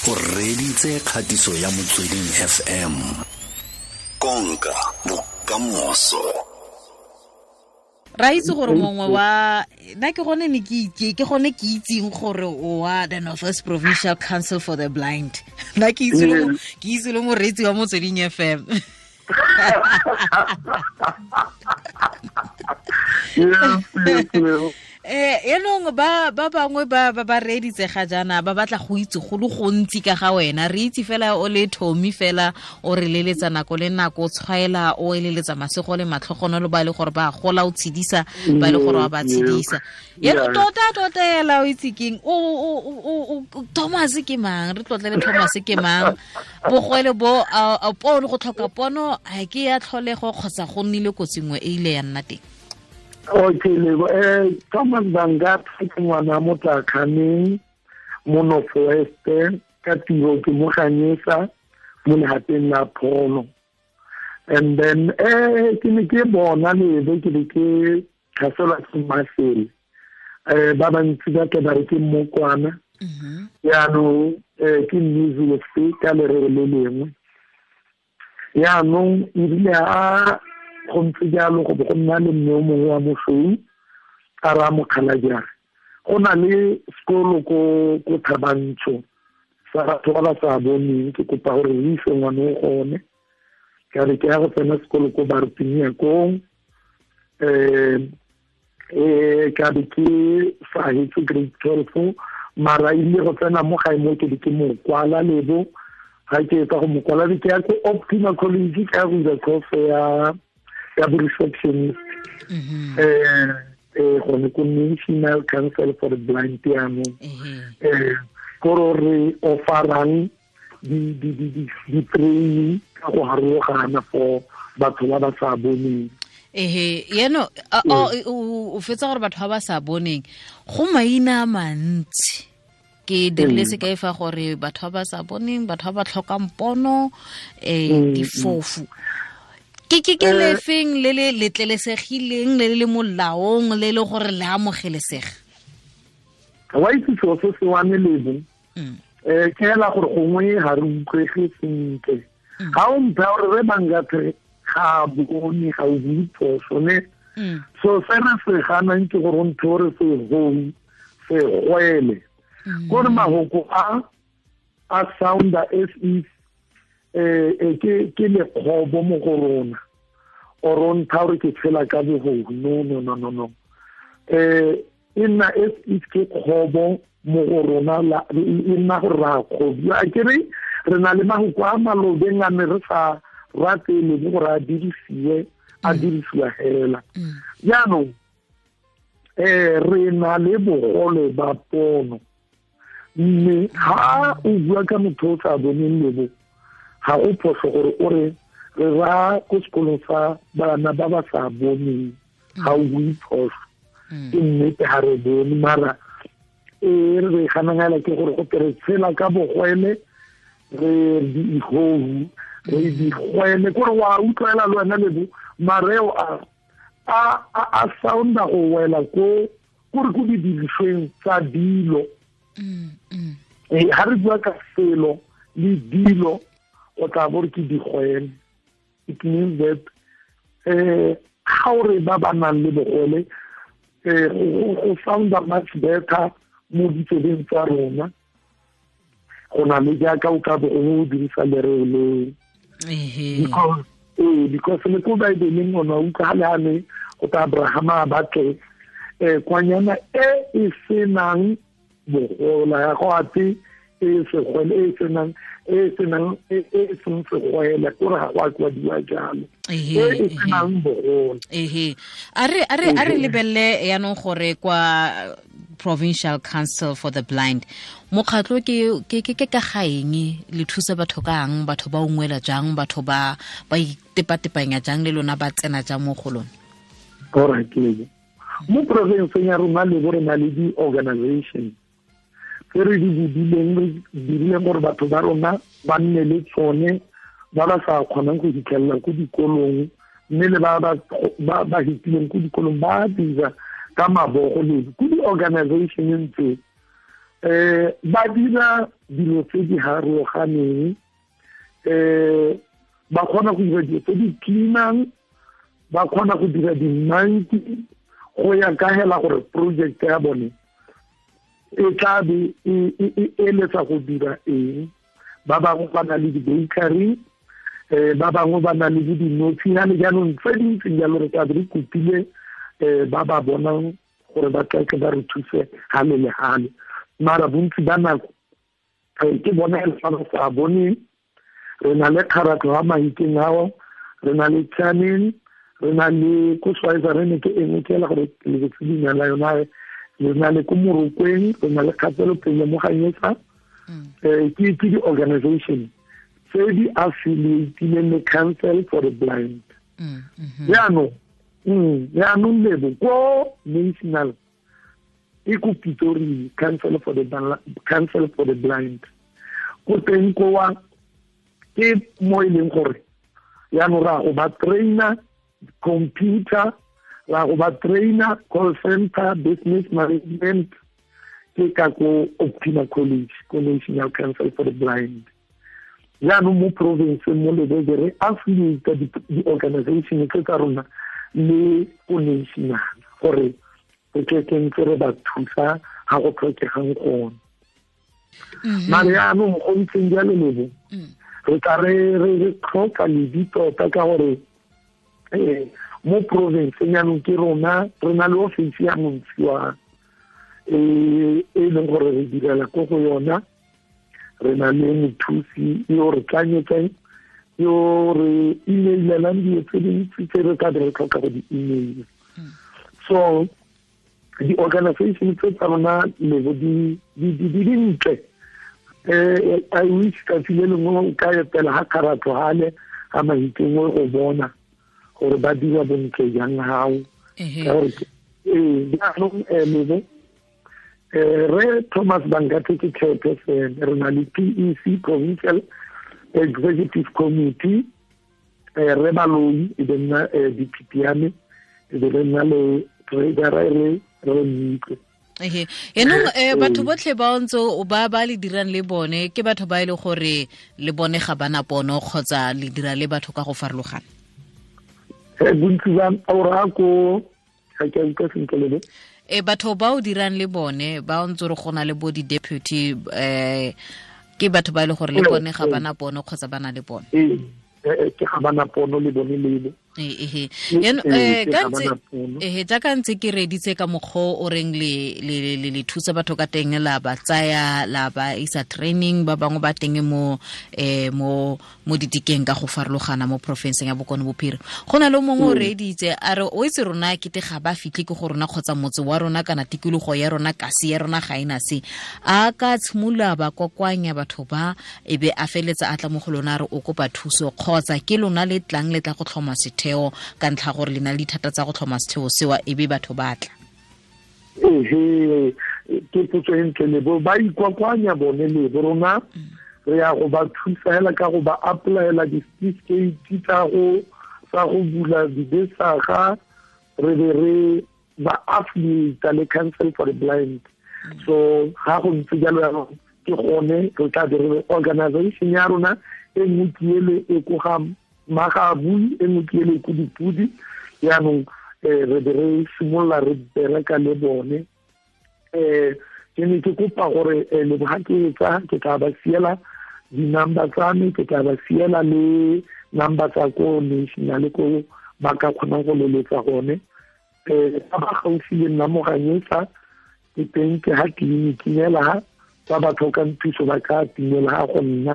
O reditse kgatiso ya Motsweding FM. Konka bokamoso. Ra itse gore mongwe wa nna ke gone ne ke itse, ke gone ke itseng gore o wa the North West Provincial Council for the Blind. Nna ke itse le ke itse le moreetsi wa Motsweding FM. Yes. Yaanong ba bangwe ba reeditse ga jaana ba batla go itse go le gontsi ka ga wena. Re itse fela o le Tommy fela o re leletsa nako le nako, o tshwaela, o eleletsa masego le matlhogonolo ba e le gore ba gola, o tshedisa ba e le gore wa ba tshedisa. Yaanong tota ela o itse keng? O Thomas ke mang? Re tlotlele Thomas ke mang? Bogwele bo a pono, go tlhoka pono ha ke ya tlholego kgotsa go nnile kotsi nngwe e ile ya nna teng? Okay, Lebo. Thomas Bangathe ke ngwana Motlakhaneng mo North West, ka tiro ke mo Ganyesa mo legateng la pholo. And then ke ne ke bona Lebo, ke be ke tlhaselwa ke masele. Ba bantsi ba tle ba re ke mmokwana. Jaanong ke measles ka lereo le lengwe. Jaanong ebile a go ntse jalo go bo go nna le mme o mongwe wa mosweu a raya mokgalajare. Go na le sekolo ko Thabantsho sa batho ba ba sa boneng, ke kopa gore re ise ngwana o gone. Ka re ke ya go tsena sekolo ko Bartinia kong, ka be ke sa hetse grade 12, mara ile go tsena mo gae mo ke be ke mo kwala Lebo. Ga ke etsa go mo kwala, ke ya ko Optima College, ke ya go dira course ya bo receptionist. Gone ko National Council for the Blind jaanong. Kore re offerang di-training ka go harologana for batho ba ba sa boneng. Ehe, yaanong, o fetsa gore batho ba ba sa boneng go maina a mantsi. Ke dirile sekai fa gore batho ba ba sa boneng, batho ba ba tlhokang pono, difofu. Ke lefeng le le letlelesegileng, le le molaong, le le gore le amogelesega? Wa itse selo se se wane Lebo. Ke hela gore gongwe ga re utlwege sentle. Ga o mpha gore re Bangathe ga bone, ga o bue phoso, ne? So se re se ganang ke gore o ntho o re se gou, se gwele. Kore mahoko a sounda as if ke lekgobo mo go rona, or o ntha gore ke tshela ka bogodu. No, no, no, no, no. E nna as if ke kgobo mo go rona, e nna gore ra kgobiwa. A ke re re na le mahoko a malobeng a ne re sa rate le gore a dirisiwe, a dirisiwa hela. Jaanong re na le bogole ba pono, mme ha o bua ka motho o sa boneng Lebo, ga go phoso gore o re re ra ko sekolong sa bana ba ba sa boneng, ga o bue phoso. Ke nnete ga re bone, mara e re ganang ke gore go tere tshela ka bogwele, re diihohu, re digwele, kore wa utlwela le wena Lebo, mareo a sounda go wela ko kore ko didirisweng tsa dilo. Ga re bua ka selo le dilo, o tla bo re ke digwele. It means that ga o re ba ba nang le bogole, go sounda much better mo ditsebeng tsa rona go na le jaaka o ka bo o dirisa lereo leo. Because le ko Baebeleng o ne wa utlwa ga le a ne go ta Abrahama a batle kwanyana e e senang bogola, ya go ate e segwele, e senang, e senang, e seng segwele, kore ga go a kwadiwa jalo. E senang bogola. A re lebelele yaanong gore kwa Provincial Council for the Blind, mokgatlho ke ka ga eng, le thusa batho kang, batho ba ungwela jang, batho ba itepatepanya jang le lona, ba tsena jang mo go lona? Alright, Lebo. Mo provinceng ya rona Lebo re na le di-organization tse re di bodileng, re dirileng gore batho ba rona ba nne le tsone, ba ba sa kgonang go fitlhelela ko dikolong, mme le ba ba hitileng ko dikolong ba dira ka mabogo le ko di-organizationeng tse. Ba dira dilo tse di harologaneng, ba kgona go dira dilo tse di cleanang, ba kgona go dira di-monkey go ya ka hela gore project ya bone e tla be e eletsa go dira eng. Ba bangwe ba na le di-bakery, ba bangwe ba na le dinotshi yane. Jaanong tse dintseng jalo re tla be re kopile ba ba bonang gore ba tle ba re thuse hale le hale. Mara bontsi ba nako ke bona e fa ba sa boneng. Re na le kgaratlho ya Mahikeng ao, re na le Chaneng, re na le ko Swaziland ke engwe ke ela gore lebetse leina la yona, re na le ko Morokweng, re na le kgatelopele mo Ganyesa. Ke di-organization tse di affiliatileng le Council for the Blind. Jaanong lebo ko national e ko Pretoria, Council for the Blind, ko teng kowa ke mo e leng gore jaanong ra go ba trainer computer, ra go ba trainer call center, business management, ke ka ko Optima College, ko National Council for the Blind. Jaanong mo province mo Lebese re affiliate di-organization tse tsa rona le ko national gore re tle ke ntse re ba thusa ga go tlhokegang gone. Mare jaanong go ntseng jalo lebo, re tla re tlhoka ledi tota ka gore mo province jaanong ke rona re na le office ya Montshiwa e leng gore re direla ko go yona. Re na le mothusi yo re tlanyetseng, yo re emailelang dilo tse dintsi tse re ka be re tlhoka go di-email. So di-organization tse tsa rona lebo di dintle. I wish tsatsi le lengwe o ka etela ga kgaratlho gale ga Mahikeng go bona gore ba dira bontle jang gao. Ka gore jaanong lebo re Thomas Bangathe ke chairperson, re na le PEC, Provincial Executive Committee, re Baloi e be nna DPP ya me, e be re nna le treasurer re Mmitlwe. Yaanong batho botlhe ba ntse ba ba le dirang le bone ke batho ba e le gore le bone ga bana pono kgotsa le dira le batho ka go farologana? Bontsi ba ora ko ga ke utlwa sentle lebe. Batho ba o dirang le bone ba ntse re gona le bo di-deputy, ke batho ba e le gore le bone ga bana pono kgotsa ba na le pono? Ke ga bana pono le bone lebe. Jaaka ntse ke reditse ka mokgwa o reng le thusa batho ka teng, la ba tsaya la ba isa training, ba bangwe ba teng mo mo ditikeng ka go farologana mo porofenseng ya Bokone Bophirima. Go na le mongwe o reditse a re o itse rona kete ga ba fitlhe ke go rona kgotsa motse wa rona kana tikologo ya rona kasi ya rona ga ena se, a ka tshimolola ba kokoanya batho ba e be a feletsa a tla mo go lona re o kopa thuso, kgotsa ke lona le tlang le tla go tlhoma setheo ka ntlha gore le na le dithata tsa go tlhoma setheo sewa e be batho ba tla? Ehe, ke potso e ntle lebo. Ba ikwakwanya bone lebo, rona re ya go ba thusa hela ka go ba applyela di-certificate tsa go bula dibesaga, re be re ba affiliate le Council for the Blind. So ga go ntse jalo jaanong ke gone re tla be re organization ya rona e nngwe ke ele e ko ga Magabui, e nngwe ke ele ko Dipudi. Jaanong re be re simolola re bereka le bone. Ke ne ke kopa gore lebo ga ke etsa ke tla ba siela di-number tsa me, ke tla ba siela le number tsa ko national ko ba ka kgonang go leletsa gone. Ba ba gaufi le nna mo Ganyesa ke teng, ke ha tleliniking hela ha ba ba tlhokang thuso ba ka timela ha go nna.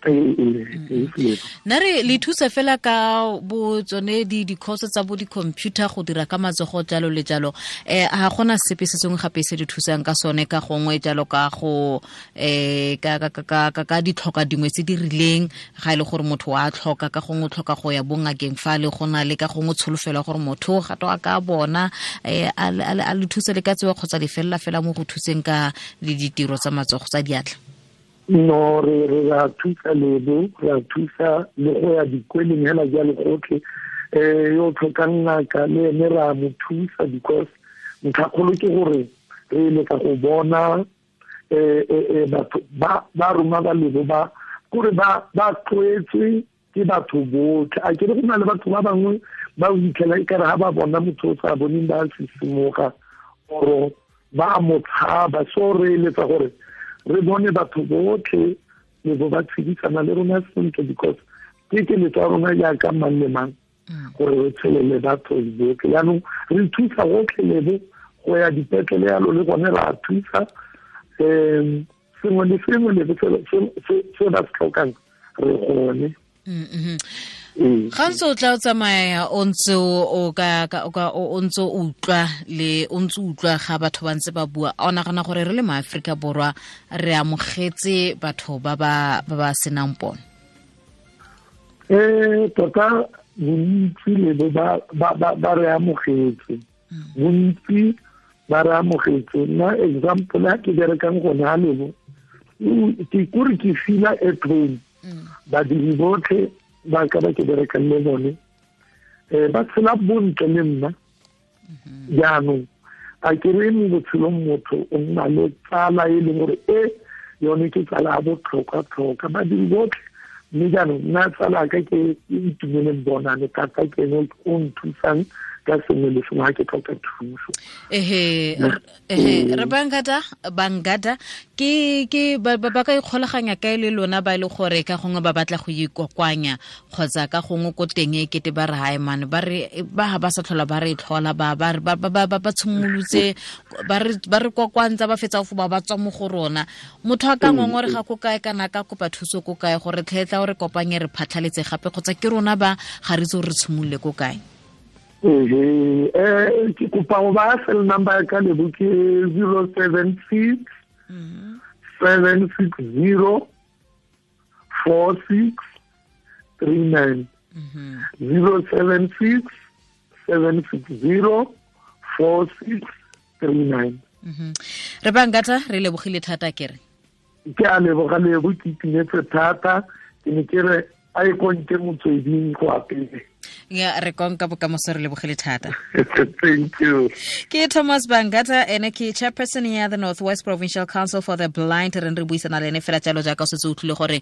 Nna re le thusa fela ka bo tsone di-course tsa bo di-computer go dira ka matsogo jalo le jalo. Ga gona sepe se sengwe gape se di thusang ka sone ka gongwe jalo ka go ka ditlhoka dingwe tse di rileng, ga e le gore motho wa tlhoka ka gongwe o tlhoka go ya bongakeng fa le go na le ka gongwe tsholofelo gore motho ga to a ka bona a le thusa le ka tsewa kgotsa le felela fela mo go thuseng ka le ditiro tsa matsogo tsa diatla? No, re ra thusa lebo, re a thusa le go ya dikweleng hela jalo gotlhe. Yo tlhokang ngaka le ene ra mo thusa, because ntlhakgolo ke gore Re eletsa go bona batho ba rona ba Lebo ba kore ba tlwaetswe ke batho botlhe. A ke re go na le batho ba bangwe ba fitlhela e kare ga ba bona motho o sa boneng ba sisimoga oro ba mo tshaba. So re eletsa gore re bone batho botlhe le bo ba tshedisana le rona sentle, because ke keletso ya rona jaaka mang le mang gore re tshele le batho botlhe. Jaanong re thusa gotlhe Lebo go ya dipetlele yalo le gone ra thusa, sengwe le sengwe Lebo se ba se tlhokang re gone. Ga ntse o tla o tsamaya o ntse o ka o ntse o utlwa le o ntse utlwa ga batho ba ntse ba bua, o nagana gore re le maAfrika Borwa re amogetse batho ba ba senang pono? Tota bontsi Lebo ba re amogetse, bontsi ba re amogetse. Nna example ya ke berekang gone ga Lebo, ke kore ke feel-a at home. Badiri botlhe ba ka ba ke berekang le bone ba tshela bontle le nna. Jaanong a ke re mo botshelong motho o nna le tsala e leng gore e yone ke tsala ya botlhokwa-tlhokwa, badiri botlhe. Mme jaanong nna tsala ka ke itumeleng bonane thata, ke ene o nthusang ka sengwe le sengwe ga ke tlhoka thuso. Ehe, re Bangata ke ba ka ikgolaganya kae le lona ba ile gore ka gongwe ba batla go ikokwanya kgotsa ka gongwe ko teng e kete ba re hae man ba re ba ba sa tlhola ba re tlhola ba ba ba ba tshimolotse ba re kokwantsa ba fetsa go ba tswa mo go rona. Motho a ka ngongore ga ko kae kana ka kopa thuso ko kae gore tlhetla o re kopanye re phatlhaletse gape, kgotsa ke rona ba ga re itse re tshimolole ko kae? Ke kopa go ba cell number ya ka Lebo ke 076 760 4639. 076 760 4639. Re Bangata re lebogile thata kere. Ke a leboga Lebo, ke itumetse thata, ke ne ke re a e konke motsweding go apele. Ya re konka bokamoso, re lebogile thata. Thank you. Ke Thomas Bangata, ene ke chairperson ya the North West Provincial Council for the Blind. Re re buisana le ene fela jalo jaaka o setse o utlwile gore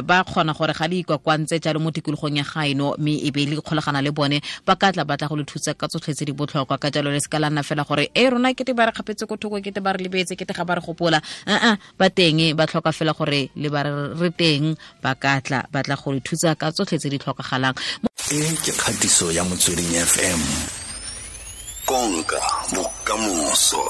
ba kgona gore ga le ikwakwantse jalo mo tikologong ya gaeno, mme e be le kgolagana le bone ba ka tla batla go le thusa ka tsotlhe tse di botlhokwa. Ka jalo le se ka la nna fela gore e rona kete ba re kgapetse ko thoko, kete ba re lebetse, kete ga ba re gopola. Ba teng, ba tlhoka fela gore le ba re teng, ba ka tla batla go le thusa ka tsotlhe tse di tlhokagalang. E ke kgatiso ya Motsweding FM. Konka bokamoso.